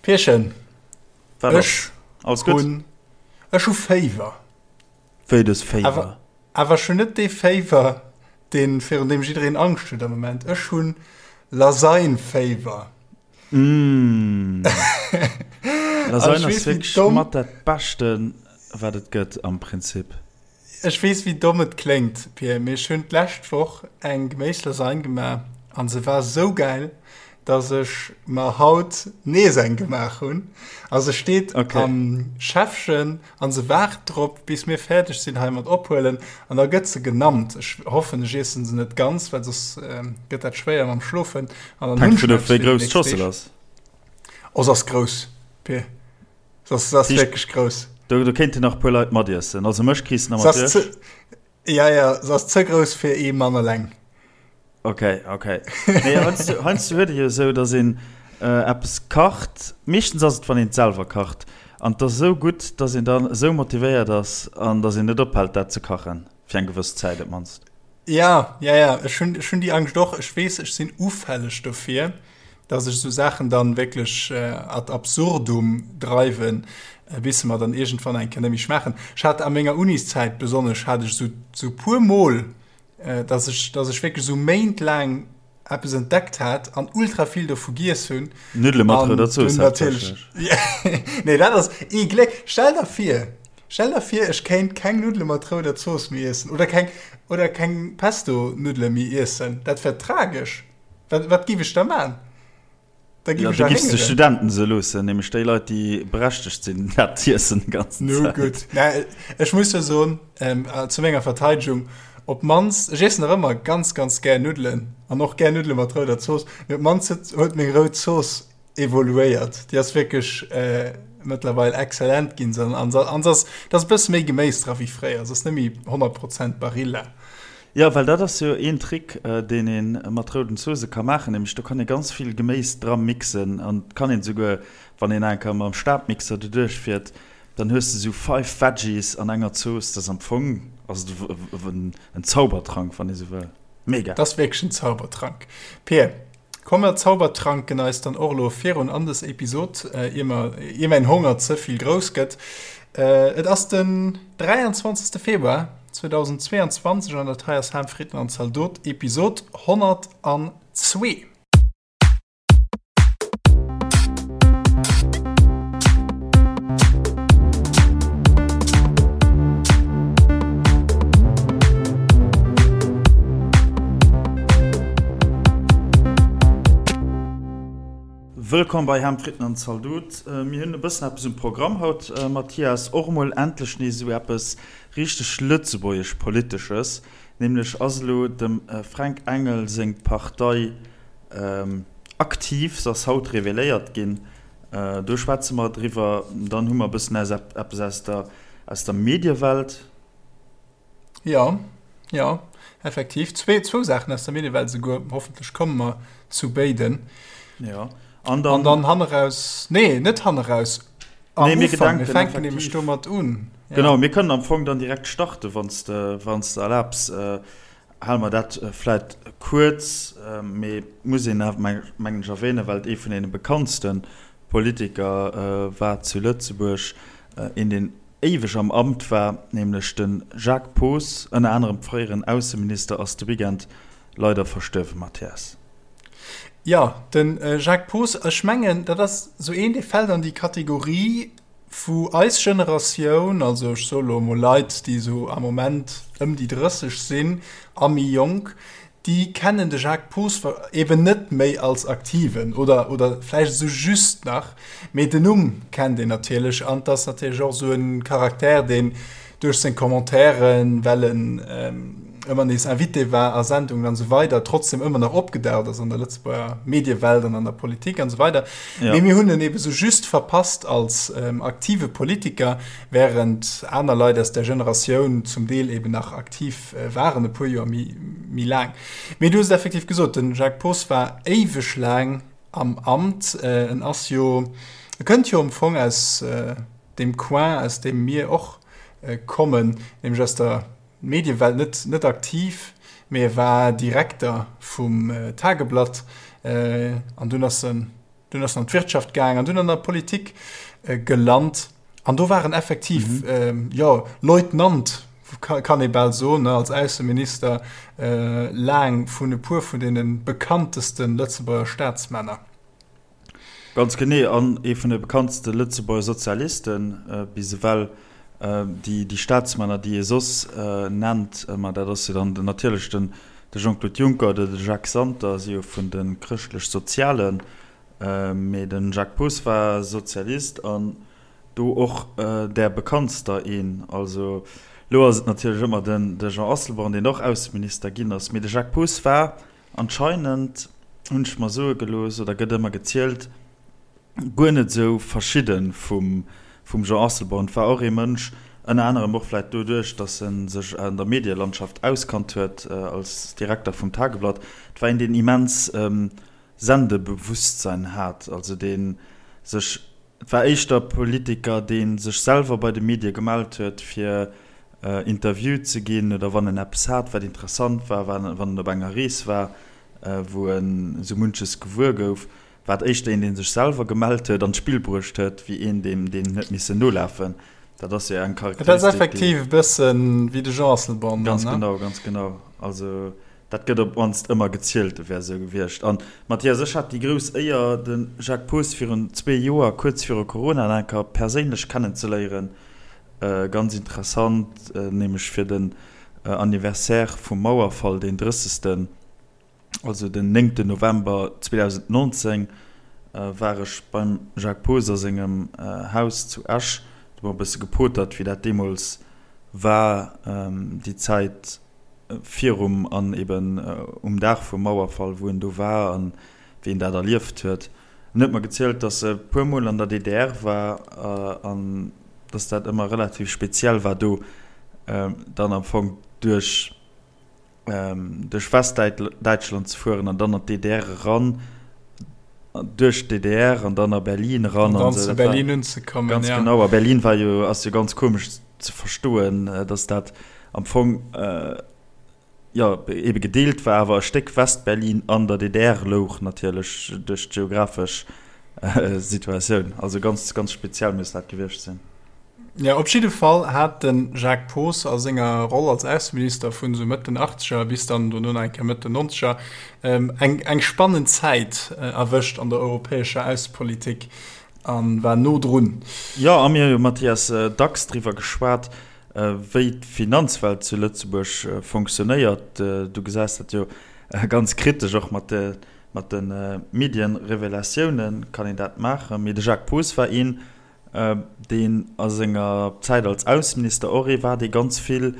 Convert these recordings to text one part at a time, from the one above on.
Pierchen, Wat ass? Ech hunn, ech hu Féiwer. Wéi, du hues Féiwer? Awer, awer ech hunn net dee Féiwer, deen, virun deem jiddereen Angscht huet am Moment. Ech hunn Lasagne-Féiwer. Mmh. Lasagne ass wierklech mat dat Beschten, wat et gëtt am Prinzip. Ech weess wéi domm et kléngt, Pir, mee ech hunn d'lescht Woch eng Geméislasagne gemaach an se war sou gäil, dass ech mer haut nees eng gemaach hunn. A se steet okay. am Schäffchen an se waart drop, bis mir fäerdeg sinn hei mat ophuelen an da gëtt se genammt. Ech hoffen ech iessen se net ganz, well soss gëtt dat schwéier mam Schlofen. An dann hunn ech eppes fir déi nächst Deeg. Oh, se ass grouss, Pir. Das, das ass wierklech grouss. Do, do kéinten nach e puer Leit matiessen. Also mech kriss de nach mat duerch. Ja, ja, se ass ze grouss fir ee Mann eleng. Okay, okay. Nee, heiansdo, heiansdo huet ee jo esou, dass een äh, eppes kacht. Meeschtens ass et, wann een et selwer kacht. An et ass esou gutt, dass een dann esou motivéiert ass an dass een net ophält, dat ze kachen. Fir eng gewëss Zäit op d'mannst. Ja, ja, ja. Ech hunn, ech hunn déi Angscht och. Ech weess, ech sinn ufälleg dofir. dass ech esou Saachen dann wierklech ad absurdum dreiwen, bis se mer dann iergendwann eng Kéier net méi schmaachen. Ech hat a menger Uniszäit besonnesch hat ech esou esou puer Mol, dass ech dass ech wierklech esou méintlaang eppes entdeckt hat an ultra vill dovu giess hunn. Nuddele mat rouder Zooss haaptsächlech. Nee, dat ass ee Gléck. Stell der vir, stell der vir, ech kéint keng Nuddele mat rouder Zooss méi iessen oder keng oder keng Pesto-Nuddele méi iessen. Dat wär tragesch. Wat, wat giff ech da man? Da giff ech ja, du de Studenten se loossen, nämlech déi Leit, déi berechtegt sinn, dat z'iessen déi ganzen Nu Zäit. gutt. Mä ech muss jo soen, ähm, zu menger Verteidegung, op d'mannst, ech iessen nach ëmmer ganz, ganz gär Nuddelen an och gär Nuddele mat rouder Zooss, mee op d'mannst huet, huet meng rout Zooss evoluéiert. Déi ass wierklech äh, mëttlerweil exzellent ginn. An an ass, et ass e bësse méi Geméis dra wéi fréier. Se ass net méi 100 Prozent Barilla. Jo, well dat ass jo een Trick, deen ee mat rouden Zoosse ka maachen, nämlech do kann ee ganz vill Geméis dra mixen an et kann een esouguer, wann een eng Kéier mam Stabmixer doduerch fiert, dann hues de esou five Veggies an enger Zooss. Dat ass am Fong ass et en Zaubertrank, wann ee sou wëll. Mega! Dat ass wierklech en Zaubertrank, Pir. Komm mer zaubertranken eis dann och elo virun an des Episod, ier mer, ier mäin Honger ze vill grouss gëtt. Et ass den 23. Februar 2022 an dat hei ass Ham, Fritten an Zaldot, Episod 102. Wëllkomm bei Ham, Fritten an Zaldot. Mir hunn e bëssen eppes um Programm haut, Mathias. Och emol endlech nees esou eppes richteg Lëtzebuergesch-Politesches. Nämlech ass elo dem Fränk Engel seng Partei aktiv. Se ass haut reveléiert ginn. Do schwätze mer driwwer. Dann hu mer e bëssen eppes aus der, aus der Mediewelt. Jo, jo, effektiv. Zwee, zwou Saachen aus der Mediewelt esouguer. Hoffentlech komme mer zu béiden. Jo, an dann. An dann hanneraus, nee, net hanneraus, am nee, mir Ufank. Mir fänken nämlech domat un. Ja. Genau, mir kënnen am Fong dann direkt starten, wann s de, wann s de erlaabs. Äh, hale mer dat äh, vläit kuerz, äh, mee muss een awer, meng, mengen ech, erwähnen, well et ee vun deene bekanntste Politiker äh, war zu Lëtzebuerg, äh, een, deen éiweg am Amt war, nämlech de Jacques Poos, ënner anerem fréieren Ausseminister, ass de Weekend leider verstuerwen, Mathias. Jo, de Jacques Poos, ech mengen, dat ass esou een, dee fält an déi Kategorie, wou eis Generatioun, also ech soe lo emol Leit, déi esou am Moment ëm déi 30 sinn a méi jonk, déi kennen de Jacques Poos eben net méi als Aktiven oder, oder vläicht esou just nach, mee den Numm kennt een natierlech an 't ass natierlech och esou e Charakter, deen duerch seng Commentairen, well en ëmmer nees Invité war a Sendungen an esou weider, trotzdem ëmmer nach opgedaucht ass an der Lëtzebuerger Mediewelt an an der Politik an esou weider. Ja. Mee mir hunn en ebe sou just verpasst als aktive Politiker, während aner Leit aus där Generatioun zum Deel eben nach aktiv waren e puer Joer méi laang. Mee du hues et effektiv gesot, de Jacques Poos war éiweg laang am Amt. En ass jo, e kënnt jo am Fong aus deem Coin, aus deem mir och kommen, nämlech aus der Mediewelt, net, net aktiv, mee e war Direkter vum Tageblatt an dunn ass en. Dunn ass en an d'Wirtschaft gaang an dunn an der Politik gelant. An do war en effektiv, jo, Leutnant, kann ee bal soen, als Ausseminister laang vun e puer vun deene bekannteste Lëtzebuerger Staatsmänner. Ganz genee, an ee vun de bekanntste Lëtzebuerger Sozialiste bis ewell. Déi Staatsmänner, déi ee soss nennt, ma dat ass jo dann natierlech den De Jean-Claude Juncker oder de Jacques Santer si jo vun de Chrëschtlech-Sozialen, mee de Jacques Poos war Sozialist an do och där bekanntster een. Also elo ass et natierlech ëmmer de Jean Asselborn, deen och Ausseminister ginn ass, mee de Jacques Poos war anscheinend, hunn ech mer soe gelooss oder gëtt ëmmer gezielt, guer net esou verschidde vum Jean Asselborn. Et war och ee Mënsch, ënner anerem och vläit doduerch, datt e sech an der Medielandschaft auskannt huet als Direkter vum Tageblatt, et war een, deen immens Sendebewusstsein hat, also dee sech, et war éischter Politiker, dee sech selwer bei de Medie gemellt huet, fir interviewt ze ginn oder wann en eppes hat, wat interessant war, wann en op enger Rees war, wou en esou munches gewuer gouf. War et éischter een, dee sech selwer gemellt huet an d'Spill bruecht huet, wéi een, deem deen huet missen nolafen. Dat ass jo eng Charakteristik, déi. Dat ass effektiv e bëssen wéi de Jean Asselborn dann, ne? Ganz genau, ganz genau. Also dat gëtt op d'mannst ëmmer gezielt, e wär esou gewiescht. An Mathias, ech hat déi grouss Éier, de Jacques Poos virun zwee Joer, kuerz viru Corona, nach eng Kéier perséinlech kennenzeléieren. Ganz interessant, nämlech fir den Anniversaire vum Mauerfall, deen 30. Also den néngten November 2019 war ech beim Jacques Poos a sengem Haus zu Esch. Do hu mer e bësse gepotert, wéi dat deemools war, déi Zäit virum an eben um Dag vum Mauerfall, wou en do war an wéi en dat erlieft huet. En huet mer gezielt, datt e puer Mol an der DDR war an datt dat ëmmer relativ speziell war do dann am Fong duerch duerch Westdäitschland ze fueren an dann an d'DDR eran, duerch d'DDR an dann a Berlin eran. An dann zu Berlin unzekommen, ganz ja. Genau, a Berlin war jo, ass jo ganz komesch ze verstoen, dass dat am Fong, jo, ebe gedeelt war, awer e Stéck Westberlin an der DDR louch natierlech duerch d'geographesch Situatioun. Also ganz, ganz speziell muss dat gewiescht sinn. Jo, op jidde Fall hat de Jacques Poos a senger Roll als Ausseminister vun esou Mëtt den Achtzeger bis dann dono nach eng Kéier Mëtt den Nonzeger eng eng spannend Zäit erwëscht an der europäescher Aussepolitik a war no drun. Jo, a mir hu jo, Mathias, dacks driwwer geschwat, wéi d'Finanzwelt zu Lëtzebuerg fonctionnéiert. Du gesäis dat jo ganz kritesch, och mat de mat de Medienrevelatiounen kann een dat maachen. Mee de Jacques Poos war een, deen a senger Zäit als Ausseminister och ee war, dee ganz vill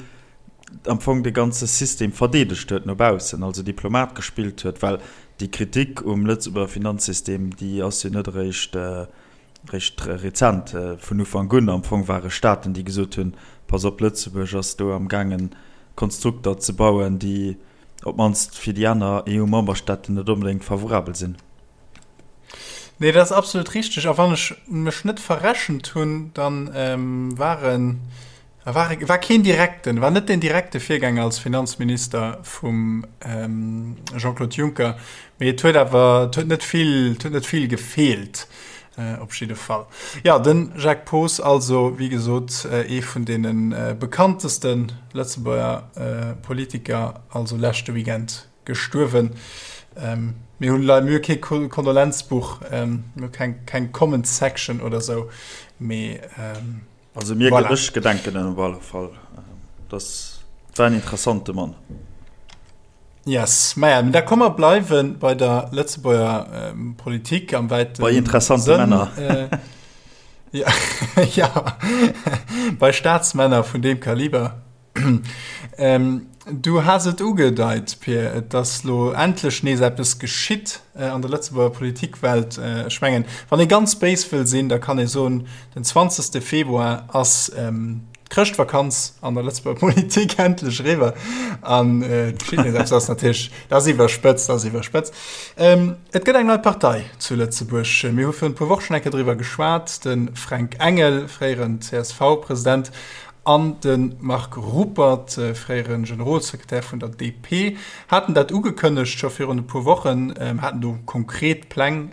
am Fong de ganze System verdeedegt huet no baussen, also Diplomat gespillt huet, well déi Kritik um Lëtzebuerger Finanzsystem, déi ass jo net eréischt eréischt rezent. Vun Ufank un am Fong ware Staaten, déi gesot hunn, Pass op, Lëtzebuerg ass do am gaangen Konstrukter ze bauen, déi op d'mannst fir déi aner EU-Memberstaaten net onbedéngt favorabel sinn. Nee, dat ass absolut richteg. A wann ech mech net verrechent hunn, dann waren, war, war keen direkten, war net den direkte Virgänger als Finanzminister vum Jean-Claude Juncker, mee et huet awer, et huet net vill, et huet net vill gefeelt op jidde Fall. Jo, de Jacques Poos also, wéi gesot, ee vun deene bekannteste Lëtzebuerger Politiker, also leschte Weekend Gestuerwen. Mir hunn leider mir hu kee Kondolenzbuch, mir hu keng keng Comment Section oder sou, mee Also mir voilà. Ech gedenken en op alle Fall. Das war en interessante Mann. Yes, maja, da komme mer bleiwe bei der Lëtzebuerger ähm, Politik am wäiten Bei interessante Sënn. Männer. Äh, ja, ja, bei Staatsmänner vun deem Kaliber. Du has et ugedeit, Pir, et ass lo endlech nees eppes geschitt an der Lëtzebuerger Politikwelt. Ech mengen, wann ee ganz béis wëll sinn, da kann ee soen, den 20. Februar ass d'Chrëschtvakanz an der Lëtzebuerger Politik endlech eriwwer an et geschitt nees eppes. Dat ass natierlech, dat ass iwwerspëtzt, dat ass iwwerspëtzt. Et gëtt eng nei Partei zu Lëtzebuerg. Mir hu virun e puer Wochen eng Kéier driwwer geschwat. De Fränk Engel, fréieren CSV-President, an de Marc Ruppert, fréiere Generolsekretär vun der DP, haten dat ugekënnegt scho virun e puer Wochen, haten do konkret Pläng.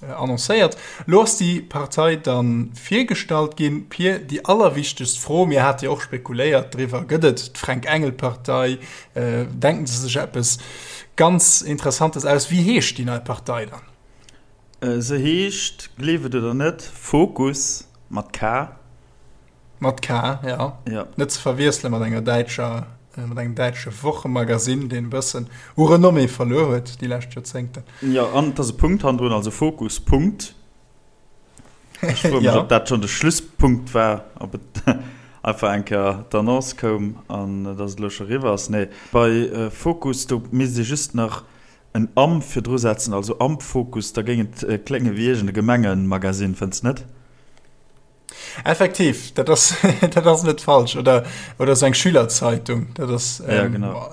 Annoncéiert. Lo ass déi Partei da virgestallt ginn. Pir, déi allerwichtegst Fro, mir hate jo och spekuléiert driwwer, Gëtt et d'Fränk-Engel-Partei? Denken se sech eppes ganz Interessantes aus? Wéi heescht déi nei Partei dann? Se heescht, gleef et oder net, Fokus mat K. Mat K, ja. Ja. Net ze verwiessele mat enger däitscher, mat engem däitsche Wochemagazin, deen e bëssen u Renommée verluer huet déi lescht Joerzéngten. Jo, an et ass e Punkt hannendrun, also Fokus, Punkt. Ech froe mech, Ja. ob dat schonn de Schlusspunkt war, ob et einfach eng Kéier d'Annonce koum an dass et elo scho eriwwer ass. Nee, bei Fokus, do misst ee just nach en am virdru setzen, also am Fokus, da géing et klénge wéi iergend e Gemengemagazin, fënns net? Effektiv, dat ass, dat ass net falsch. Oder, oder sou eng Schülerzeitung. Dat ass, Ja, ähm, genau.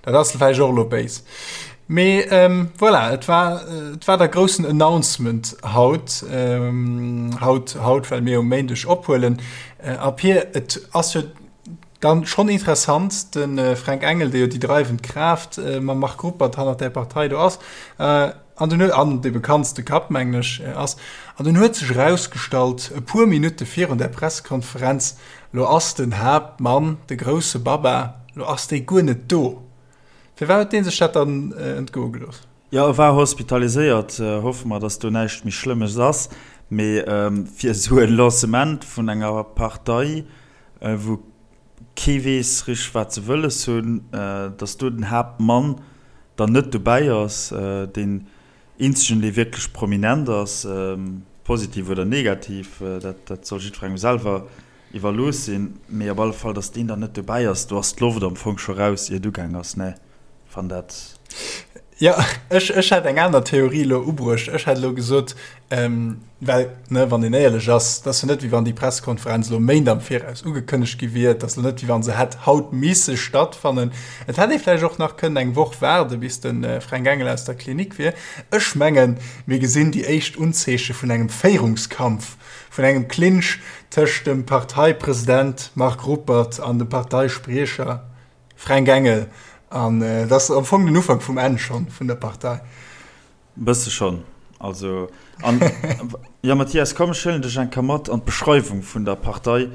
Dat ass vläicht och elo béis. Mee ähm, voilà, et war, et war der groussen Announcement haut, ähm, haut, haut, well mir um Méindeg ophuelen. Äh, a Pir, et ass jo dann schonn interessant, de äh, Fränk Engel, dee jo déi dreiwend Kraaft äh, mam Marc Ruppert hannert där Partei do ass, äh, An dunn huet, an dee bekanntste Kapp, mengen ech, ass, an dunn huet sech erausgestallt, e puer Minutte virun där Pressekonferenz, Lo ass den Haaptmann, de grousse Baba, lo ass dee guer net do. Firwat huet dee sech dat dann entgoe gelooss? Jo, e war hospitaliséiert. Hoffe mer, datt do näischt méi Schlëmmes ass. Mee fir esou e Lancement vun enger Partei, wou kee weess richteg wat se wëlles hunn, datt do den Haaptmann dann net dobäi ass, deen eenzegen dee wierklech prominent ass, positiv oder negativ, dat dat soll jiddwerengem selwer iwwerlooss sinn, mee op alle Fall datt deen dann net dobäi ass, do ass d'Loft am Fong scho raus ier et ugaang ass, ne? Wann dat. Jo, ech, ech hätt eng aner Theorie elo ubruecht. Ech hätt elo gesot, well, ne, wann een éierlech ass, et ass jo net, wéi wann déi Pressekonferenz elo Méint am Viraus ugekënnegt gi wier. Et ass elo net, wéi wa se hätt haut misse stattfannen. Et hätt ee vläicht och nach kënnen eng Woch waarde bis de Fränk Engel aus der Klinik wier. Ech mengen, mir gesinn déi éischt Unzeeche vun engem Féierungskampf, vun engem Clinch tëscht dem Parteipresident Marc Ruppert an dem Parteispriecher Fränk Engel, An et ass am Fong den Ufank vum Enn schonn vun der Partei. Bësse schonn. Also, an, jo Mathias, komm ech huelen dech eng Kéier mat an d'Beschreiwung vun der Partei.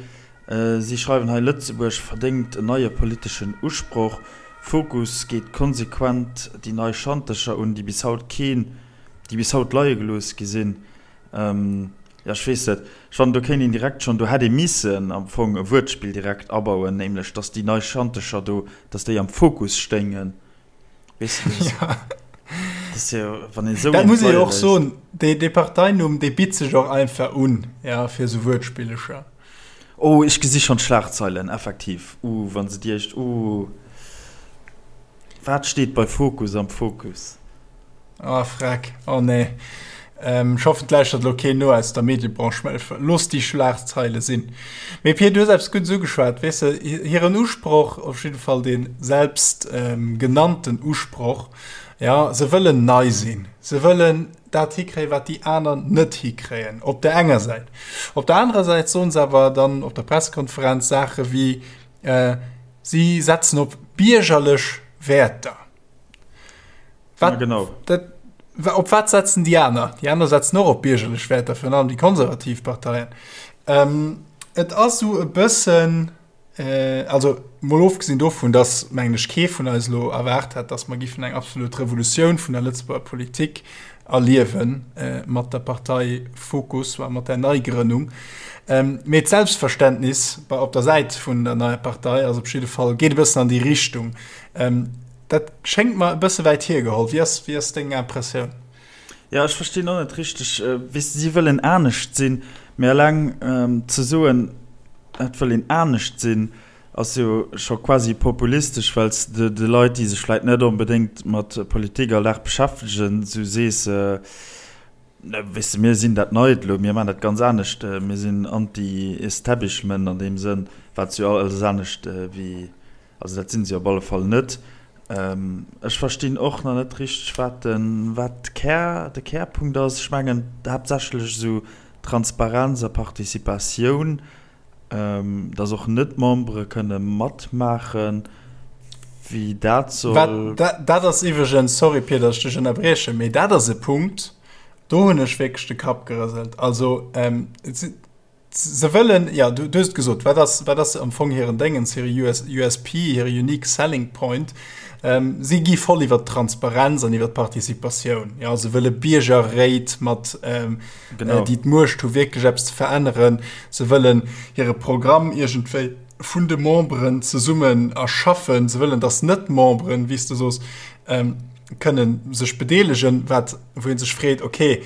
Si schreiwen hei, Lëtzebuerg verdéngt en neie politeschen Usproch. Fokus geet konsequent déi nei Schantercher un, déi bis haut keen, déi bis haut leie gelooss gi sinn. Jo, ech weess net. Ech fannen, do kéint een direkt schonn, do hätt ee missen am Fong e Wuertspill direkt abauen, nämlech dass déi nei Schantecher do, dass déi am Fokus stéingen. Weess de, dat Ja. ass jo, wann een esou Dat eent muss ee leie jo och léisst. soen, dee, dee Parteinumm, dee bitt sech och einfach un, ja, fir esou Wuertspillecher. Oh, ech gesi schonn d'Schlagzeilen, effektiv. Uh, wa se déi éischt, uh. Wat steet bei Fokus am Fokus? Ah freck, oh nee. Ech hoffen et lauschtert elo keen no aus der Mediebranche, mä looss déi Schlagzeile sinn. Mee Pir, du hues eppes Guddes ugeschwat, weess de, hiren Usproch, op jidde Fall dee selbst genannten Usproch, jo, se wëllen nei sinn, se wëllen dat hikréien, wat déi aner net hikréien, op der enger Säit. Op der anerer Säit soen se awer dann op der Pressekonferenz Saache wéi, si setzen op biergerlech Wäerter. Wat, ja, genau. Dat, op wat setzen déi aner? Déi aner setzen och op biergerlech Wäerter, virun allem déi konservativ Parteien. Ähm, et ass sou e bëssen, äh, also mol ofgesinn dovun, dass, mengen ech, kee vun eis elo erwaart hätt, dass mer giffen eng absolut Revolutioun vun der Lëtzebuerger Politik erliewen äh, mat der Partei Fokus, mat der Neigrënnung. Ähm, mee d'Selbstverständnis bei, op der Säit vun der neier Partei ass op jidde Fall, geet e bëssen an déi Richtung. Ähm, Dat schéngt mer e bësse wäit hiergeholl. Wéi ass, wéi ass deng Impressioun? Jo, ech verstinn och net richteg. Weess de, si wëllen anescht sinn, mee eleng ze soen, et wëll een anescht sinn, ass jo scho quasi populistesch, well s de de Leit, déi sech vläit net onbedéngt mat Politik all Dag beschäftegen, esou sees, Weess de, mir sinn dat Neit elo, mir maachen dat ganz anescht, mir sinn anti-establishment an deem Sënn, wat se jo alles anescht wéi Also dat sinn se op alle Fall net. Ech verstinn och nach net richteg, wat den, wat Kär, de Kärpunkt ass. Ech mengen haaptsächlech esou Transparenz a Participatioun, dass och Net-Membere kënne matmaachen, wéi dat soll. Wat, dat ass iwwregens, sorry Pir, datt ech dech ënnerbriechen, mee dat ass e Punkt. Do hunn ech wierklech de Kapp gerëselt. Also se wëllen, jo, du hues et gesot, wat ass, wat ass am Fong hiren Déngens, hire US, USP, hire Unique Selling Point? Si gi voll iwwer d'Transparenz an iwwer d'Participatioun. Jo, se wëlle Biergerréit mat, déi d'Muecht hu wierklech eppes ze veränneren. Se wëllen hire Programm iergendwéi vun de Memberen zesummen erschaffen. Se wëllen, datt Net-Memberen, wéi s de sos, kënnen sech bedeelegen, wat, wou ee sech freet, okay,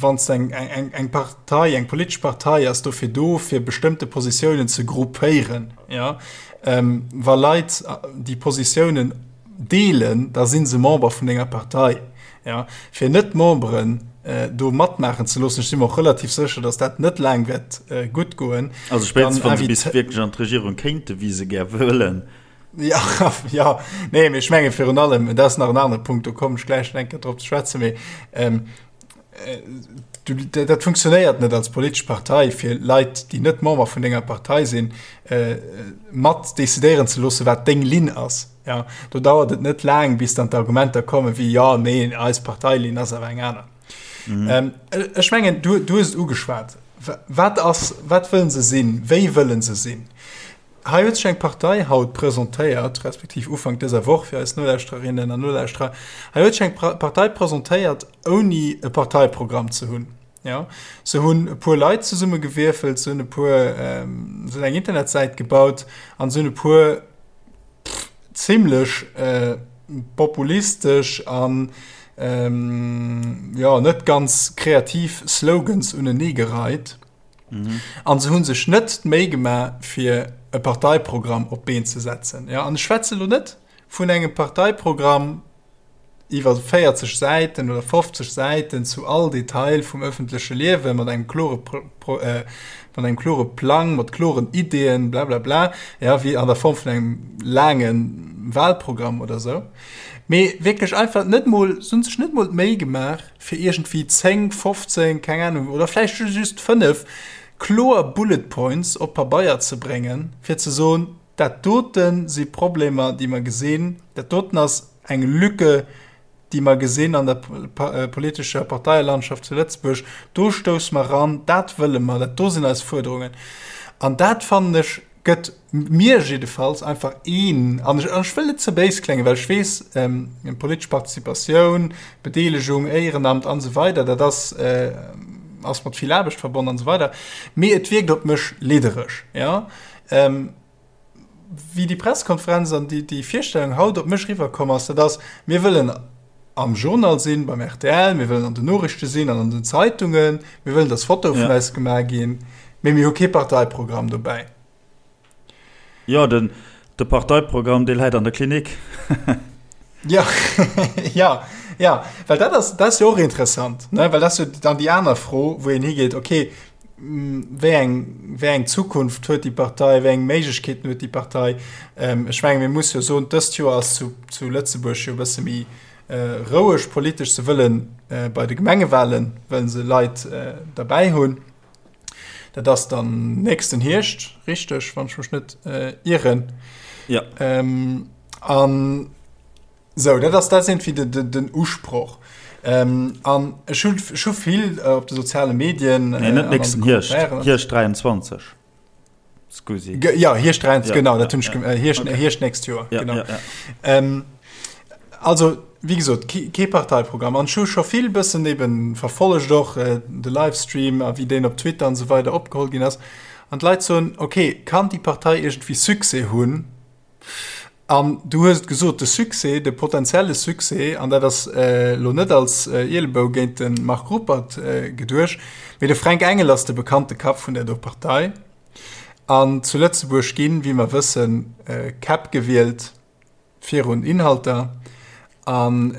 wann s eng, eng, eng Partei, eng politesch Partei ass dofir do, fir bestëmmte Positiounen ze gruppéieren, ja, ähm, wa Leit déi Positiounen deelen, da si se Member vun denger Partei, ja. Fir Net-Memberen äh, do matmaachen ze loossen, ech si mer och relativ sécher, datt dat net laang wäert äh, gutt goen. Also spéitstens, wann se bis wierklech an d'Regierung kéinten, wéi se gär wëllen. Ja, ja, nee, mee ech menge virun allem, dat ass nach en anere Punkt, do kommen ech gläich nach eng Kéier drop ze schwätzen, mee ähm, äh, du, dat funktionéiert net als politesch Partei, fir Leit, déi net Member vun denger Partei sinn, äh, mat decidéieren ze loossen, wat deng Linn ass. Ja, do dauert et net laang, bis dann d'Argumenter kommen wéi, ja, nee, eis Parteilinn ass awer eng aner. Mhm. Ähm, ech mengen, du, du hues et ugeschwat. Wat ass, wat wëllen se sinn? Wéi wëllen se sinn? Hei huet sech eng Partei haut presentéiert, respektiv Ufank dëser Woch fir eis Nolauschtererinnen an Nolauschterer, hei huet sech eng Partei presentéiert, ouni e Parteiprogramm ze hunn. Jo, se hunn e puer Leit zesummegewierfelt, se hunn e puer, se hunn eng Internetsäit gebaut an se hunn e puer zimlech populistesch an, jo, net ganz kreativ Slogans uneneegereit. Mhm. An se hunn sech net d'Méi gemaach, fir e Parteiprogramm op d'Been ze setzen. Ja, an ech schwätze lo net vun engem Parteiprogramm iwwer 40 Säiten oder 50 Säiten zu all Detail vum öffentleche Liewe mat engem klore, Pro, äh, mat engem klore Plang, mat kloren Ideeën, bla bla bla, ja, wéi an der Form vun engem laange Wahlprogramm oder sou. Mee wierklech einfach net mol, se hunn sech net mol d'Méi gemaach, fir iergendwéi 10, 15, keng Ahnung, oder vläicht just 5 kloer Bullet Points op Pabeier ze bréngen, fir ze soen, dat dote si Problemer, déi mer gesinn, dat doten ass eng Lücke, déi mer gesinn an der politescher Parteielandschaft zu Lëtzebuerg, do stousse mer eran, dat wëlle mer, dat do sinn eis Fuerderungen. An dat fannen ech gëtt mir jiddefalls einfach een, an ech, ech wëll net ze béis kléngen, well ech weess, ähm, politesch Participatioun, Bedeelegung, Éierenamt an esou weider, dat ass, äh, ass mat vill Aarbecht verbonnen an esou weider, mee et wierkt op mech liddereg, ja. Ähm, wéi déi Pressekonferenz an déi, déi Virstellung haut op mech riwwerkomm ass, dat ass, mir wëllen am Journal sinn, beim rtl, mir wëllen an den Noriichte sinn an an den Zeitungen, mir wëllen, dass Fotoe vun eis gemaach ginn, mee mir hu kee Parteiprogramm dobäi. Jo, den, de Parteiprogramm, dee läit an der Klinik. Jo, jo, jo, well dat ass, dat ass jo och interessant, ne, well dat ass jo dann déi aner Fro, wou een higeet, okay, wéi eng, wéi eng Zukunft huet déi Partei, wéi eng Méiglechkeeten huet déi Partei? Ech menge mir musse jo soen, dëst Joer ass zu, zu Lëtzebuerg jo e bësse méi roueg politesch. Se wëllen bei de Gemengewahlen, wëllen se Leit derbäi hunn. Dat ass dann nächsten Hierscht, richteg, wann ech mech net ieren. Ja. An Sou, dat ass, dat ass iergendwéi de, de, den Usproch. Ähm, an ech hunn, ech hu vill äh, op de soziale Medien. Nee, net nächsten Hierscht, Hierscht 23. Scusi. Ge ja, Hierscht 23, ja, genau, dat hunn ech, ja. äh, Hierscht, okay. Hierscht nächst Joer, ja, genau. Ja, ja. Ähm, also, wéi gesot, kee Parteiprogramm. An ech hu scho vill bëssen eben verfollegt och äh, de Livestream a wéi deen op Twitter an esou weider opgeholl ginn ass. An d'Leit soen, okay, kann déi Partei iergendwéi Succès hunn? An du hues et gesot, de Succès, de potenzielle Succès, an dat ass elo net als Ielebou géint de Marc Ruppert geduecht, mee de Fränk Engel ass de bekannte Kapp vun där do Partei. An zu Lëtzebuerg ginn, wéi mer wëssen, Käpp gewielt virun Inhalter. An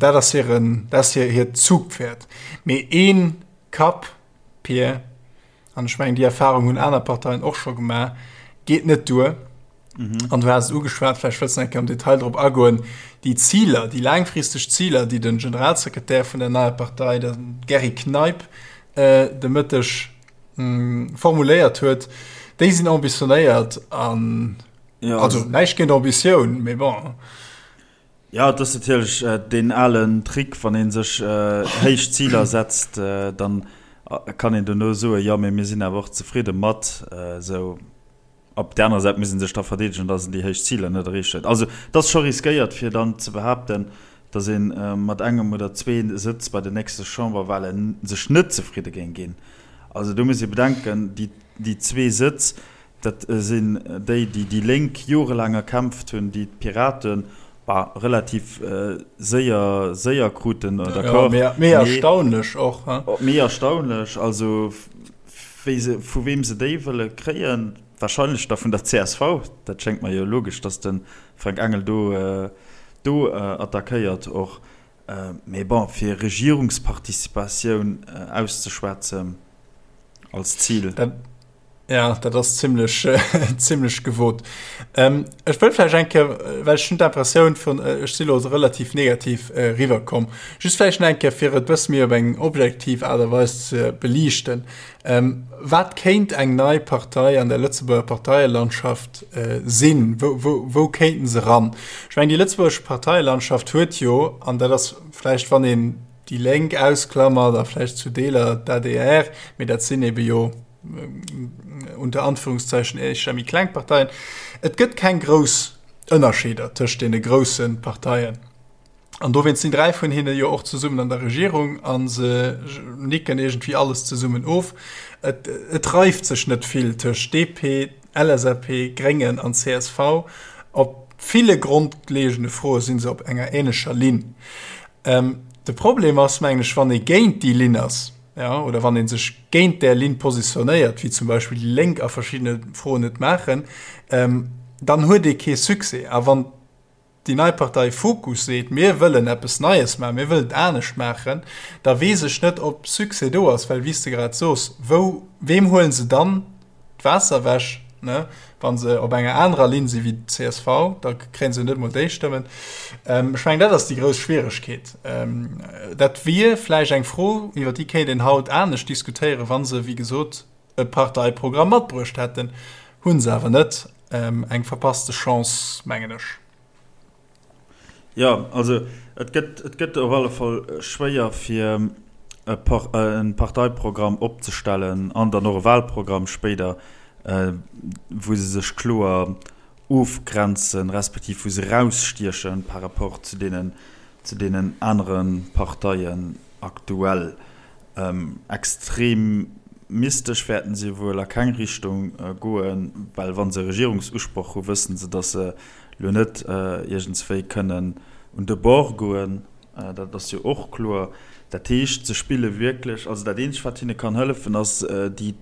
dat ass hiren, dat ass hiert Zugpferd. Mee ee Kapp, Pir, an ech mengen déi Erfahrung hunn aner Parteien och scho gemaach, geet net duer. Mhm. An du has et ugeschwat, vläicht wëlls du nach eng Kéier am Detail drop agoen, déi Ziler, déi laangfristeg Ziler, déi de Generalsekretär vun der neier Partei, de Gerry Kneip, äh, de Mëtteg mh, formuléiert huet, déi sinn ambitionéiert an ja, also näischt géint Ambitioun, mee bon. Jo, et ass natierlech deen alen Trick, wann ee sech héich Ziler setzt, dann kann een dono soen, jo, mee mir sinn awer och zefridde mat esou. Op där anerer Säit muss ee sech da verdeedegen, datt een déi héich Ziler net erreecht huet. Also et ass scho riskéiert, fir dann ze behaapten, datt ee mat engem oder zwee Sëtz bei den nächste Chamberwale sech net zefridde géing ginn. Also do muss ee bedenken, déi zwee Sëtz, dat sinn déi, déi déi Lénk jorelaang erkämpft hunn, déi d'Piraten, bah, relativ séier, séier kruten, d'accord. Méi erstaunlech och, he? Méi erstaunlech, also wéi se, vu weem se déi wëlle kréien, wahrscheinlech da vun der csv, dat schéngt mer jo logesch, datt de Frank Engel do, do attackéiert och. Mee bon, fir Regierungsparticipatioun auszeschwätzen als Zil. Dat, ja, dat ass zimlech, zimlech gewot. Ech wëll vläicht eng Kéier, well ech hunn d'Impressioun vun, ech si lo relativ negativ eriwwerkomm, just vläicht nach eng Kéier, fir et e bësse méi op eng objektiv Aart a Weis ze beliichten, Wat kéint eng nei Partei an der Lëtzebuerger Parteielandschaft sinn? Wou, wou, wou kéinten se ran? Ech mengen, déi lëtzebuergesch Parteielandschaft huet jo, an dat ass vläicht, wann een déi Lénk ausklammert a vläicht zu Deeler d'ADR, mee dat sinn ebe jo unter Anführungszeichen éischter méi kleng Parteien, et gëtt keng grouss Ënnerscheeder tëscht deene grousse Parteien. An dowéinst sinn 3 vun hinne jo och zesummen an der Regierung a se nicken iergendwéi alles zesummen of. Et, et reift sech net vill tëscht DP, LSAP, Gréngen an csv. Op ville grondlegende Froe si se op enger änlecher Linn. De Problem ass, mengen ech, wann ee géint déi Linn ass, jo, oder wann ee sech géint där Linn positionéiert, wéi zum Beispill déi Lénk a verschiddene Froen et maachen, dann huet ee kee Succès. A wann déi nei Partei Fokus seet, mir wëllen eppes Neies maachen, mir wëllen et anescht maachen, da weess ech net, ob Succès do ass, well wéi s de grad sos, wou, weem huele se dann d'Waasser ewech, ne, wa se op enger anerer Linn si wéi d'CSV, da kréie se net emol déi Stëmmen. Ech mengen, dat ass déi grouss Schwieregkeet. Dat wier vläicht eng Fro, iwwer déi kéint een haut anescht diskutéieren, wa se, wéi gesot, e Parteiprogramm matbruecht hätten, hunn se awer net. Eng verpasste Chance, mengen ech. Jo, also et gëtt, et gëtt op alle Fall schwéier fir e Parteiprogramm opzestellen an dann och e Wahlprogramm spéider, wou se sech kloer ofgrenzen, respektiv wou se erausstieche par rapport zu deenen, zu deenen anere Parteien aktuell. Extremistesch wäerten si wuel a keng Richtung goen, well wa se Regierungsusproch hu wëssen se, datt se lo net iergendswéi kënnen un de Bord goen. Dat ass jo och kloer. Dat heescht, se spille wierklech, also dat eenzegt wat hinne kann hëllefen, ass déi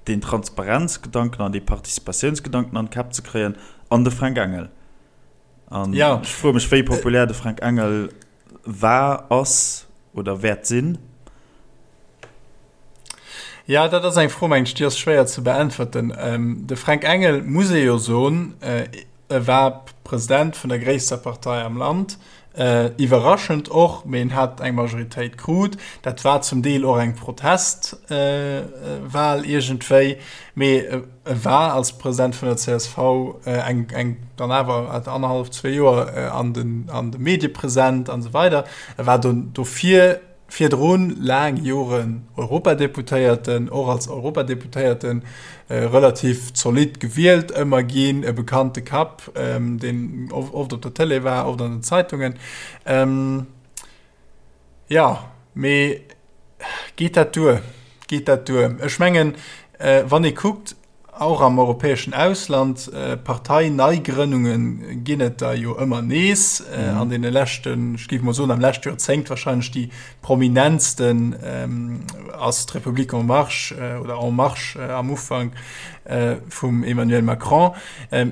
deen Transparenzgedanken an dee Participatiounsgedanken an d'Käpp ze kréien an de Fränk Engel. An ech froe mech, wéi populär de Fränk Engel war, ass oder wäert sinn? Ja, dat ass eng Fro, mengen ech, déi ass schwéier ze beäntwerten. De Fränk Engel, muss ee jo soen, e war President vun der gréisster Partei am Land, iwwerraschend och, mee en hat eng Majoritéit krut. Dat war zum Deel och eng Protestwahl iergendwéi, mee E war als President vun der csv eng, eng dann awer annerhallef, zwee Joer an den, an de Medie present an esou weider. E war do, dofir virdrun laang Joren Europadeputéierten, och als Europadeputéierten relativ zolidd gewielt ëmmer ginn, e bekannte Kapp, deen oft op der Tëlee war, oft an den Zeitungen. Jo, mee geet dat duer? Geet dat duer? Ech mengen, wann ee kuckt, och am europäeschen Ausland, Parteineigrënnunge ginn et der jo ëmmer nees. An deene leschten, ech géif mol soen, am leschte Joerzéngt wahrscheinlech déi prominentsten ass d'Republique en marche oder En marche am Ufank vum Emmanuel Macron.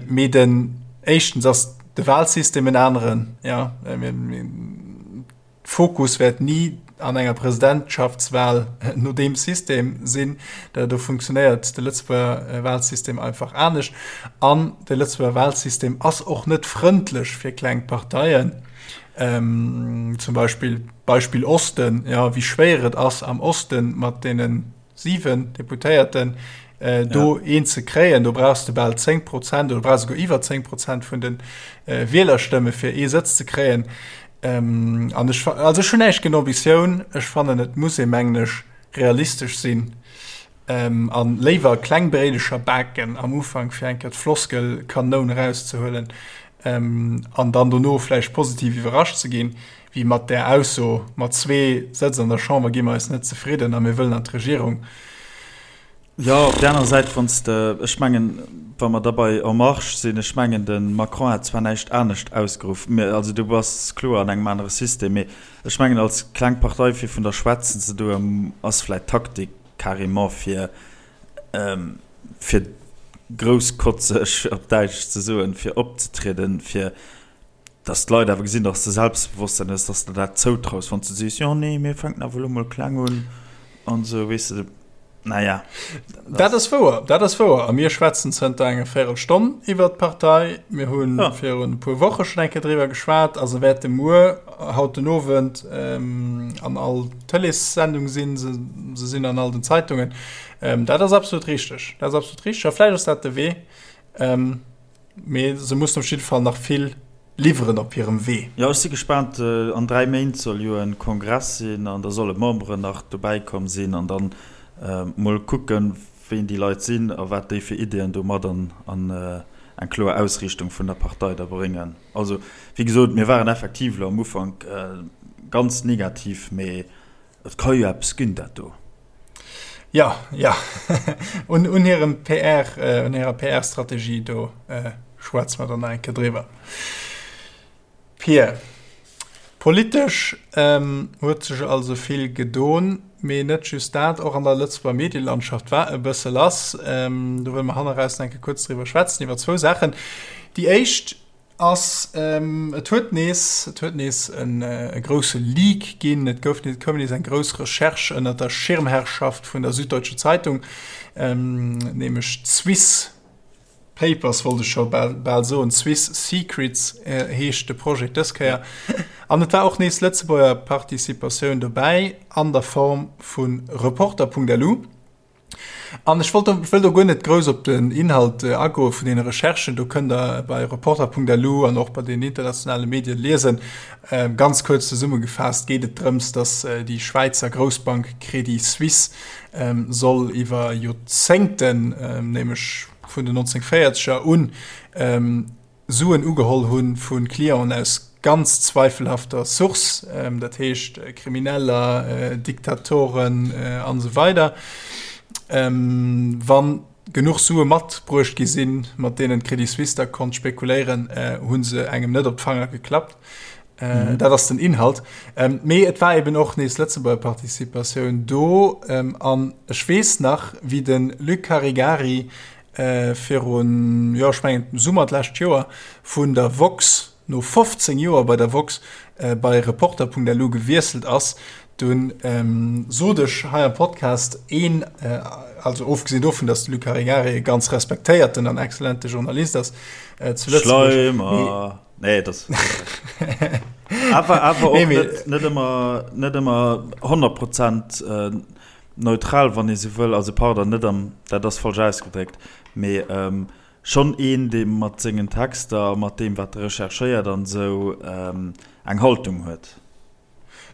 Mee den, éischtens ass de Wahlsystem en aneren, jo. Fokus wäert ni an enger Presidentschaftswahl no deem System sinn. Do funktionéiert de Lëtzebuerger Wahlsystem einfach anescht. An de Lëtzebuerger Wahlsystem ass och net frëndlech fir kleng Parteien. Zum Beispill, Beispill Osten, jo, wéi schwéier et ass am Osten mat deene 7 Deputéierten. Do een ze kréien, do brauchs de bal 10 Prozent oder brauchs esouguer iwwer 10 Prozent vun de Wielerstëmme fir ee Sëtz ze kréien. An ech, also ech hunn näischt géint Ambitioun, ech fannen et muss ee mengen ech realistesch sinn an léiwer kleng Bréidecher baken am Ufank fir eng Kéier d'Floskelkanoun erauszehuelen an dann dono vläicht positiv iwwerrascht ze ginn, wéi mat där Ausso, mat zwee Sëtz an der Chamber gi mer eis net zefridden a mir wëllen an d'Regierung. Jo, op där anerer Säit, wann s de, ech mengen, wa mer da bei En Marche sinn, ech mengen, de Macron hat zwar näischt anescht ausgeruff, mä also du bass kloer an engem anere System, mee ech mengen, als kleng Partei fir vun der schwätzen ze doen, ass vläicht d'Taktik carrément fir, fir grousskotzeg, op Däitsch ze soen, fir opzetrieden, fir dass d'Leit awer gesinn, dass de Selbstbewosstsein hues, dass de der dat zoutraus, wann s de sees, jo nee, mir fänken awer elo mol kleng un an esou, weess de, naja. Dat ass wouer, dat ass wouer. A mir schwätzen zënter enger Véirelstonn iwwert d'Partei. Mir hu virun e puer Woche schonn eng Kéier driwwer geschwat a se wäerte muer, haut den Owend, an all Tëleessendung sinn. Se sinn an all den Zeitungen. Dat ass absolut richteg, dat ass absolut richteg. A vläicht ass dat de Wee. Mee se mussen op jidde Fall nach vill liwweren op hirem Wee. Jo, ech si gespaant. An 3 Méint soll jo e Kongress sinn an da solle Memberen nach dobäi komm sinn an dann mol kucken, ween déi Leit sinn a wat déi fir Ideeën do mat an eng kloer Ausriichtung vun der Partei da bréngen. Also, wéi gesot, mir waren effektiv elo am Ufank ganz negativ, mee Et ka jo eppes ginn, dat do. Jo, jo. Un, un hirem PR, un hirer PR-Strategie, do schwätze mer dann nach eng Kéier driwwer. Pir, politesch huet sech also vill gedon, mee net just dat, och an der Lëtzebuerger Medielandschaft war e bësse lass. Do wëlle mer hanneraus nach eng Kéier kuerz driwwer schwätzen, iwwer zwou Saachen. Déi éischt Ass, et huet nees, et huet nees e grousse Leak ginn, et gouf nees, et koum nees eng grouss Recherche ënner der Schirmherrschaft vun der Süddeutsche Zeitung, nämlech d'Swiss Papers wollt ech scho bal soen, Swiss Secrets heescht de Projet dës Kéier. An et war och nees Lëtzebuerger Participatioun dobäi an der Form vu Reporter.lu. An ech wollt wëll do guer net grouss op den Inhalt agoe vun deene Recherchen. Do kënnt Der bei Reporter.lu an och bei den internationale Medien liesen. Ganz kuerz zesummegefaasst geet et drëms, datt déi Schwäizer Groussbank Credit Suisse soll iwwer Joerzéngten, nämlech vun den 1940er un, Suen ugeholl hu vu Clienten aus ganz zweifelhafter Source, dat heescht Krimineller, Diktatoren an esou weider. Wa genuch Sue matbruecht gi sinn, mat deenen d'Credit Suisse da konnt spekuléieren, hu se engem net op d'Fanger geklappt. Dat ass den Inhalt. Mee et war eben och nees Lëtzebuerger Participatioun do. An ech weess nach, wéi de Luc Caregari virun, jo ech mengen Summer d'lescht Joer, vun der Woxx, no 15 Joer bei der Woxx, bei Reporter.lu gewiesselt ass, dunn sot ech hei am Podcast een, also ofgesinn dovun, datt de Luc Caregari e ganz respektéierten an exzellente Journalist ass zu Lëtzebuerg. Schleimer! Nee, das awer awer och net, net ëmmer, net ëmmer 100 Prozent Neutral, wann ee sou wëll, also pardon, net am, dat ass falsch ausgedréckt, mee schonn een, dee mat sengen Texter a mat deem, wat e recherchéiert an esou, eng Haltung huet.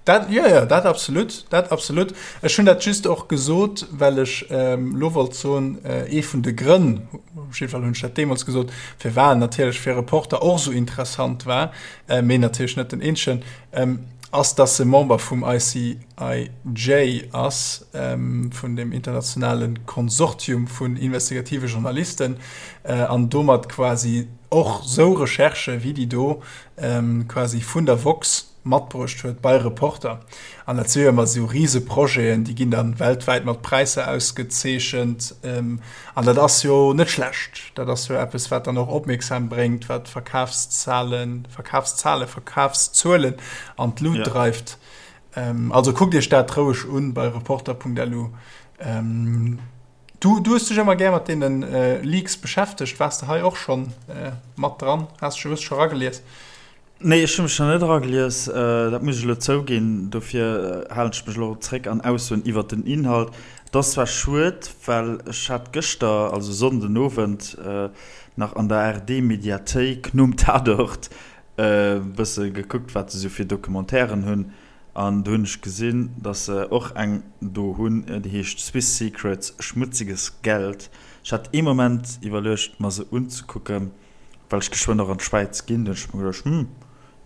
Dat, jo, jo, dat absolut, dat absolut. Ech hunn dat just och gesot, well ech elo wollt soen, ee vun de Grënn, op jidde Fall hunn ech dat deemools gesot, firwat en natierlech fir Reporter och esou interessant war, mee natierlech net den eenzegen, ass, dass e Member vum ICIJ ass, vun dem internationale Konsortium vun investigative Journalisten, an domat quasi och sou Recherchë wéi déi do quasi vun der woxx matbruecht huet bei Reporter. An dat si jo ëmmer sou Riseprojeten, déi ginn dann weltwäit mat Präisser ausgezeechent. An dat ass jo net schlecht. Dat ass jo eppes, wat dann och Opmierksam bréngt, wat Verkafszahlen, Verkafszahlen, Verkafszuelen an d'Lut ja. dreift. Ähm, also kuckt Iech dat roueg un bei reporter.lu. Ähm, du, du hues dech ëmmer gär mat deenen äh, Leaks beschäftegt. Waars de hei och schonn äh, mat dran? Has du hues scho ragelies? Nee, ech hu mech nach net eragelies, dat muss ech elo zouginn. Dofir halen ech mech elo och zréck an Aussoen iwwert den Inhalt. Et ass zwar schued, well ech hat gëschter, also Sonnden Owend, nach an der ARD-Mediathéik nom Tatort e bësse gekuckt, wat se esou fir Documentairen hunn. An do hunn ech gesinn, dass se och eng do hunn, déi heescht Swiss Secrets, Schmutziges Geld. Ech hat ee Moment iwwerluecht, mer se unzekucken, well ech geschwënn och an d'Schwäiz ginn. Do hunn ech mer geduecht, Hm,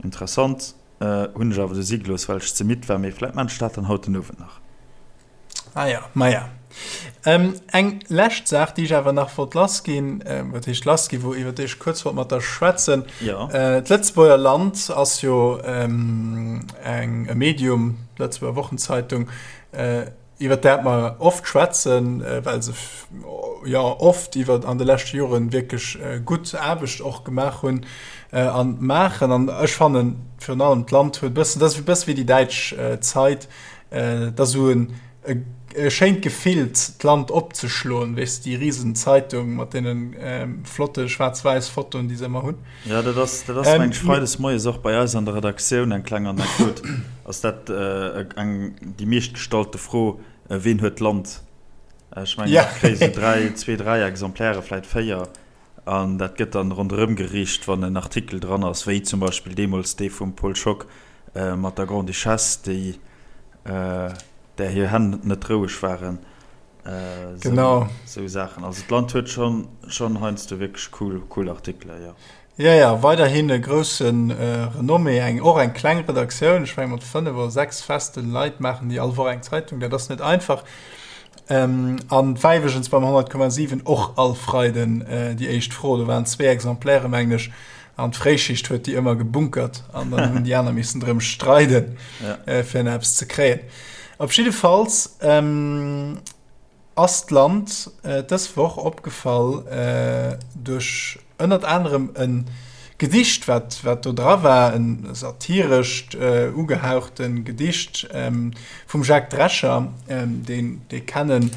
interessant. Hunn ech awer du si gelooss, well ech ze midd war. Mee vläit maan ech dat dann haut den Owend nach. Ah ja, maja. Ähm, eng lescht Saach, déi ech awer nach wollt lassginn, ähm, wat heescht lassginn, wou iwwer déi ech kuerz wollt mat der schwätzen. Ja. Äh, D'Lëtzebuerger Land ass jo ähm, eng, e Medium, d'Lëtzebuerger Wochenzeitung, äh, iwwer dat mer oft schwätzen, äh, well se ja oft iwwer an de leschte Joren wierklech äh, gutt Aarbecht och gemaach hunn äh, an maachen. An ech fannen virun allem d'Land huet bëssen, dat ass e bësse wéi déi däitsch äh, Zeit, Et ass esou en e schéint Gefill d'Land opzeschloen, weess de, déi risen Zeitung mat deene flotte schwaarz-wäiss Fotoen, déi se ëmmer hunn. Jo, dat ass, dat ass meng ech freides moies och bei eis an der Redaktioun eng kleng Anekdot, ass dat eng déi meescht gestallte Fro, Ween huet d'Land? Ech mengen, ech kréie sou dräi, zwee, dräi Exemplaire, vläit véier, an dat gëtt dann ronderëm geriicht, wann en Artikel dran ass, wéi zum Beispill deemools dee vum Paul Schock, Mat der Grande-Duchesse, déi, där hir Hänn net roueg waren. Genau. Sou Saachen. Also d'Land huet schonn, schonn heiansdo wierklech cool, cool Artikelen, jo. Jo, jo, weiderhin e grousse Renommée, eng, och eng kleng Redaktioun, ech menge mat 5 oder 6 feste Leit maachen déi all Woch eng Zeitung, dat ass net einfach. An war iwwregens beim 100,7 och all Freiden déi éischt Fro, do waren zwee Exemplaire, mengen ech. An d'Fréischicht huet déi ëmmer gebunkert an dann hunn déi aner missen drëm streiden, ja. äh, fir eppes ze kréien. Op jiddefalls ähm, ass d'Land äh, dës Woch opgefall äh, duerch ënnert anerem en Gedicht, wat, wat do dra war, en satirescht äh, ugehauchten Gedicht ähm, vum Jacques Drescher, ähm, deen, dee kennen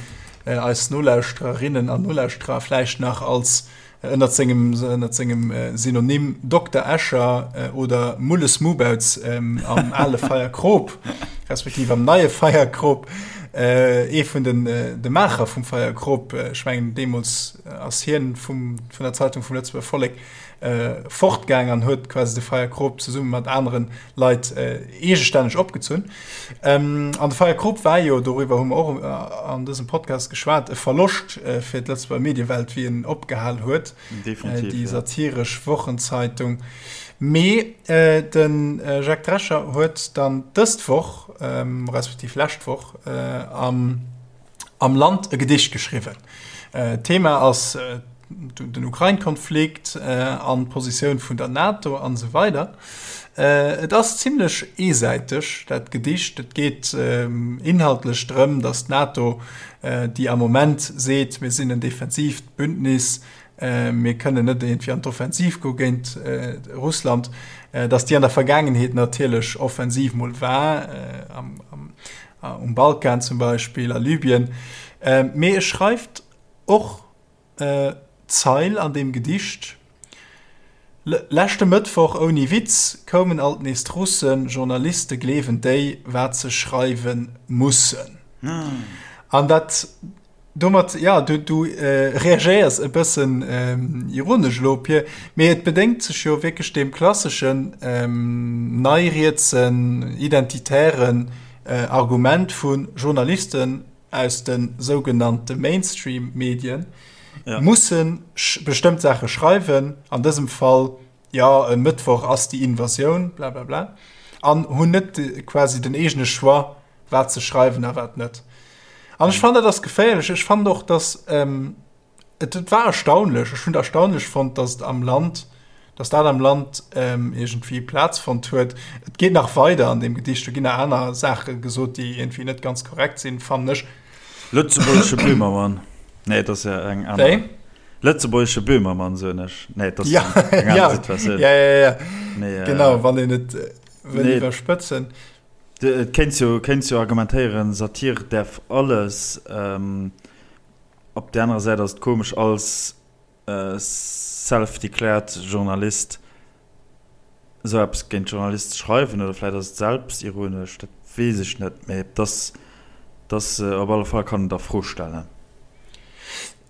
äh, eis Nolauschtererinnen an Nolauschterer vläicht nach als Ënnert sengem ënnert sengem Synonym Dokter Escher oder Mulles Mubauz am ale Feierkrop, respektiv am neie Feierkrop, ee vun den de Maacher vum Feierkrop, ech mengen deemools ass hien vum vun der Zeitung vum Lëtzebuerger Vollek fortgaang an huet quasi de Feierkrop zesumme mat anere Leit eegestänneg opgezunn. An de Feierkrop war jo, doriwwer hu mer och an dësem Podcast geschwat, e Verloscht fir d'Lëtzebuerger Mediewelt, wéi en opgehal huet, déi satiresch Wochenzeitung. Mee de Jacques Drescher huet dann dëst Woch, respektiv lescht Woch, am am Land e Gedicht geschriwwen. D'Thema ass den Ukrain-Konflikt an d'Positioun vun der NATO an esou weider. Et ass zimlech eesäiteg, dat Gedicht. Et geet inhaltlech drëm, datt d'NATO, déi am Moment seet, mir sinn en defensiivt Bündnis, mir kënnen net iergendwéi an d'Offensiv goe géint Russland, datt déi an der Vergaangenheet natierlech offensiv mol war, am um Balkan zum Beispill, a Libyen. Mee e schreift och d'Zeil an deem Gedicht, Leschte Mëttwoch, ouni Witz, koumen alt nees d'Russen, Journaliste gleewen déi, wat se schreiwe mussen. An dat Domat, ja, du, du äh, reagéiers e bëssen ähm, ironesch elo, Pir, mee et bedéngt sech jo wierklech deem klasseschen ähm, neirietsen, identitären äh, Argument vu Journalisten aus de sougenannte Mainstream-Medien ja. mussen bestëmmt Saache schreiwen, an dësem Fall, ja, e Mëttwoch ass déi Invasioun, bla bla bla, an hunn net quasi den eegene Choix, wat ze schreiwen a wat net. An ech fannen, dat ass geféierlech. Ech fannen och, dass ähm, et, et war erstaunlech, ech hunn et erstaunlech fonnt, dass et am Land, dass dat am Land ähm, iergendwéi Plaz fonnt huet. Et geet nach weider an deem Gedicht, do ginn nach aner Saache gesot, déi iergendwéi net ganz korrekt sinn, fannen ech. Lëtzebuergesche Böhmermann. Nee, dat ass ja eng aner. Wéi? Lëtzebuergesche Böhmermann, soen ech. Nee, dat ass ja, eng aner ja, Situatioun. Ja, ja, ja. Nee, äh, genau, wann een et äh, wëll nee. iwwerspëtzen. Et kéints jo, kéints jo argumentéieren, Satire däerf alles. Op där anerer Säit ass et komesch als self-declared Journalist esou eppes géint Journalist ze schreiwen. Oder vläit ass et selbstironesch, dat weess ech net. Mee et ass. Dass op alle Fall kann et a Fro stellen.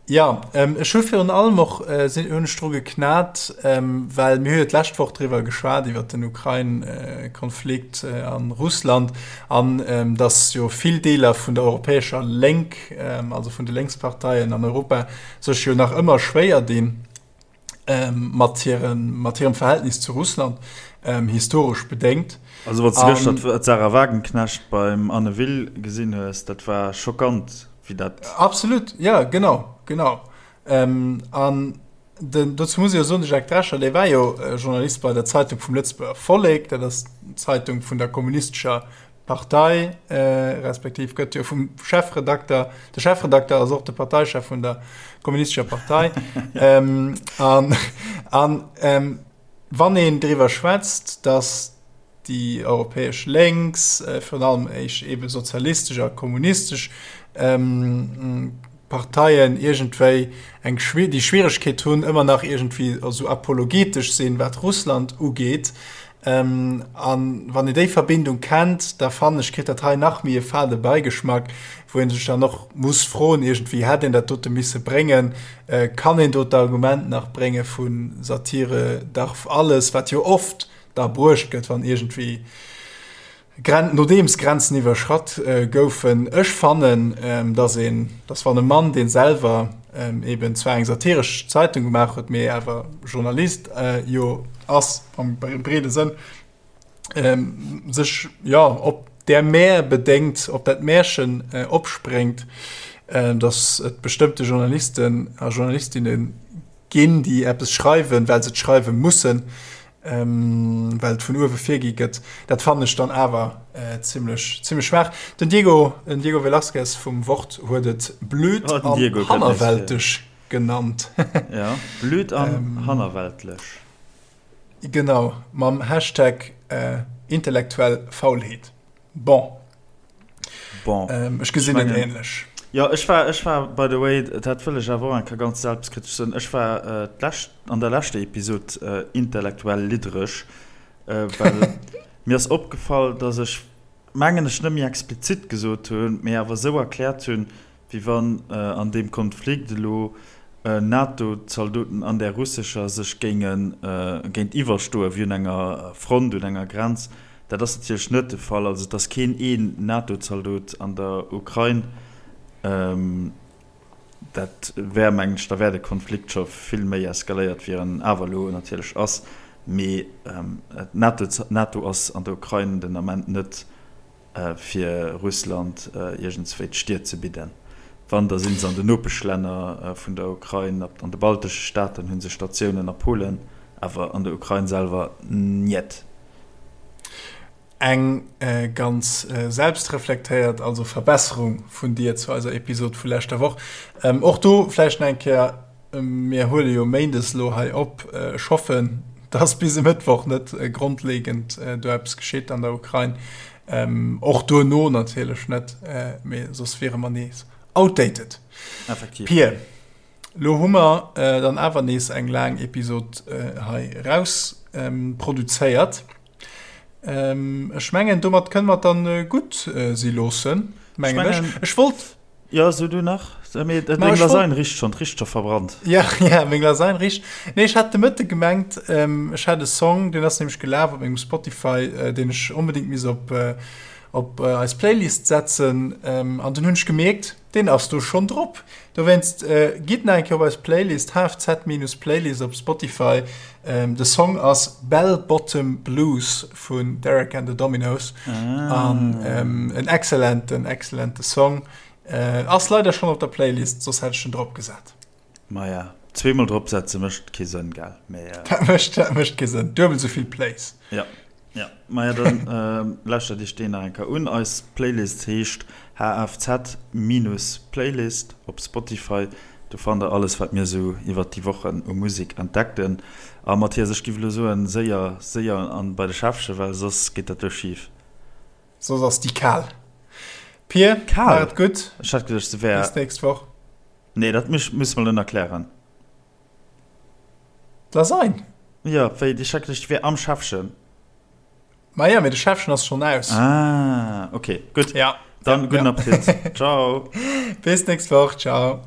Jo, ech hu virun allem och sinn hunn ech dru geknat, well mir hu jo d'lescht Woch driwwer geschwat iwwert den Ukrain-Konflikt an Russland an datt jo vill Deeler vun der europäescher Lénk, also vun de Lénksparteien an Europa sech jo nach ëmmer schwéier dinn, mat hirem, mat hirem Verhältnis zu Russland, historesch bedéngt. Also wann s de gëschter d'Sarah Wagenknecht beim Anne Will gesinn hues, dat war schockant, wéi dat. Absolut, jo, genau, genau. An den, dozou muss ee jo soen, de Jacques Drescher, dee war jo Journalist bei der Zeitung vum Lëtzebuerger Vollek, dat ass d'Zeitung vun der kommunistescher Partei, respektiv gëtt jo vum Chefredakter, de Chefredakter ass och de Parteichef vun der kommunistescher Partei. An, an wann een driwwer schwätzt, datt déi europäesch Lénks, virun allem éisch ebe sozialistesch a kommunistesch Parteien iergendwéi eng déi Schwieregkeet hunn, ëmmer nach iergendwéi esou apologetesch sinn, wat Russland ugeet, An wann een déi Verbindung kennt, da fannen ech, kritt dat hei nach méi e fade Beigeschmack, wou ee sech dann och muss froen, iergendwéi, hätt een dat dote misse bréngen? Kann een do d'Argument nach brénge vu Satire darf alles, wat jo oft da bruecht gëtt, wann iergendwéi Gren nodeems Grenzen iwwerschratt goufen? Ech fannen, dass een, dass wann e Mann, dee selwer eben zwar eng satiresch Zeitung gemaach huet, mee awer Journalist jo ass am breede Sënn, sech jo op där Mär bedéngt, op dat Märchen opspréngt, dass et bestëmmte Journalisten a Journalistinne ginn, déi eppes schreiwen, well se et schreiwe mussen, well et vun uewe virgi gëtt, dat fannen ech dann awer zimmlech zimmlech schwaach. Den Diego, den Diego Velázquez vum Wort huet et blöd oh, an hannerwelteg genannt. Ja, blöd an ähm, hannerweltlech. Genau, mam Hashtag äh, intellektuell Faulheet. Bon. Bon. Ähm, ech gesinn et ähnlech. Jo, ech war, ech war, by the way, dat wëll ech awer och eng Kéier ganz selbstkritesch soen, ech war äh, d'lescht, an der leschter Episod äh, intellektuell liddereg, äh, well mir ass opgefall, dass ech, mengen ech, net méi explizit gesot hunn, mee awer esou erkläert hunn, wéi wann an deem Konflikt elo NATO-Zaldoten an där russescher sech géinge géintiwwerstoen, wéi un enger Front, un enger Grenz. Dat ass natierlech net de Fall. Also et ass keen een NATO-Zaldot an der Ukrain. Dat wär, mengen ech, da wär de Konflikt scho vill méi eskaléiert, wéi en awer elo natierlech ass. Mee d'NATO ass an der Ukrain den Ament net fir Russland iergendswéi d'Stier ze bidden. Wann, da si se an den Nopeschlänner vun der Ukrain, an de baltesche Staaten hu se Statiounen, a Polen, awer an der Ukrain selwer njet. Eng ganz selbstreflektéiert also Verbesserung vun dir zu eiser Episod vu leschter Woch. Och do vläicht nach eng Kéier, Mir huele jo méindes elo hei op. Ech hoffen, dass bis e Mëttwoch net grondlegend do eppes geschitt an der Ukrain. Och duerno natierlech net, mee soss wiere mer nees outdated. Effektiv. Pir, lo hu mer dann awer nees eng laang Episod hei eraus produzéiert. Ech mengen, domat kënne mer et dann gutt si loossen, mengen ech. Ech wollt. Jo, so du nach. Mee deng Lasagne richt schon, richt scho verbrannt. Ja, ja, meng Lasagne richt. Nee, ech hat de Mëtte gemengt, ech hätt e Song, deen ass nämlech gelaf op mengem Spotify, deen ech onbedéngt misst op, op eis Playlist setzen. An dunn hunn ech gemierkt, deen ass do schonn drop. Dowéinst, gitt nach eng Kéier op eis Playlist, hfz-playlist op Spotify. De Song ass Bell Bottom Blues vun Derek and the Dominos. Ah. An ähm, en excellenten, excellente Song. Äh, ass leider schon op der Playlist, soss hätt ech en drop gesat. Maja, zweemol drop setze mécht kee Sënn, gell? Mee, äh, dat mécht, dat mécht kee Sënn. Duebel souvill Plays. Ja. Ja, maja, dann äh, lauschtert iech deen nach eng Kéier un. Eis Playlist heescht HFZ-Playlist op Spotify. Do fannt der alles, wat mir esou iwwert déi Wochen u Musek entdeckten. A Mathias, ech giff elo soen, séier, séier an bei de Schäffchen, well soss geet dat do schif. Soss ass déi kal. Pir, Kal? Maach et gutt. Ech hat geduecht, se wär. Bis d'nächst Woch. Nee, dat muss mer elo nach klären. D'Lasagne? Jo, wéi, ech hat geduecht, déi wär am Schäffchen. Maja, mee de Schäffchen ass schonn aus. Ah, ok, gutt. Ja. Dann gudden Appetit. Ciao. Bis nächst Woch. Ciao.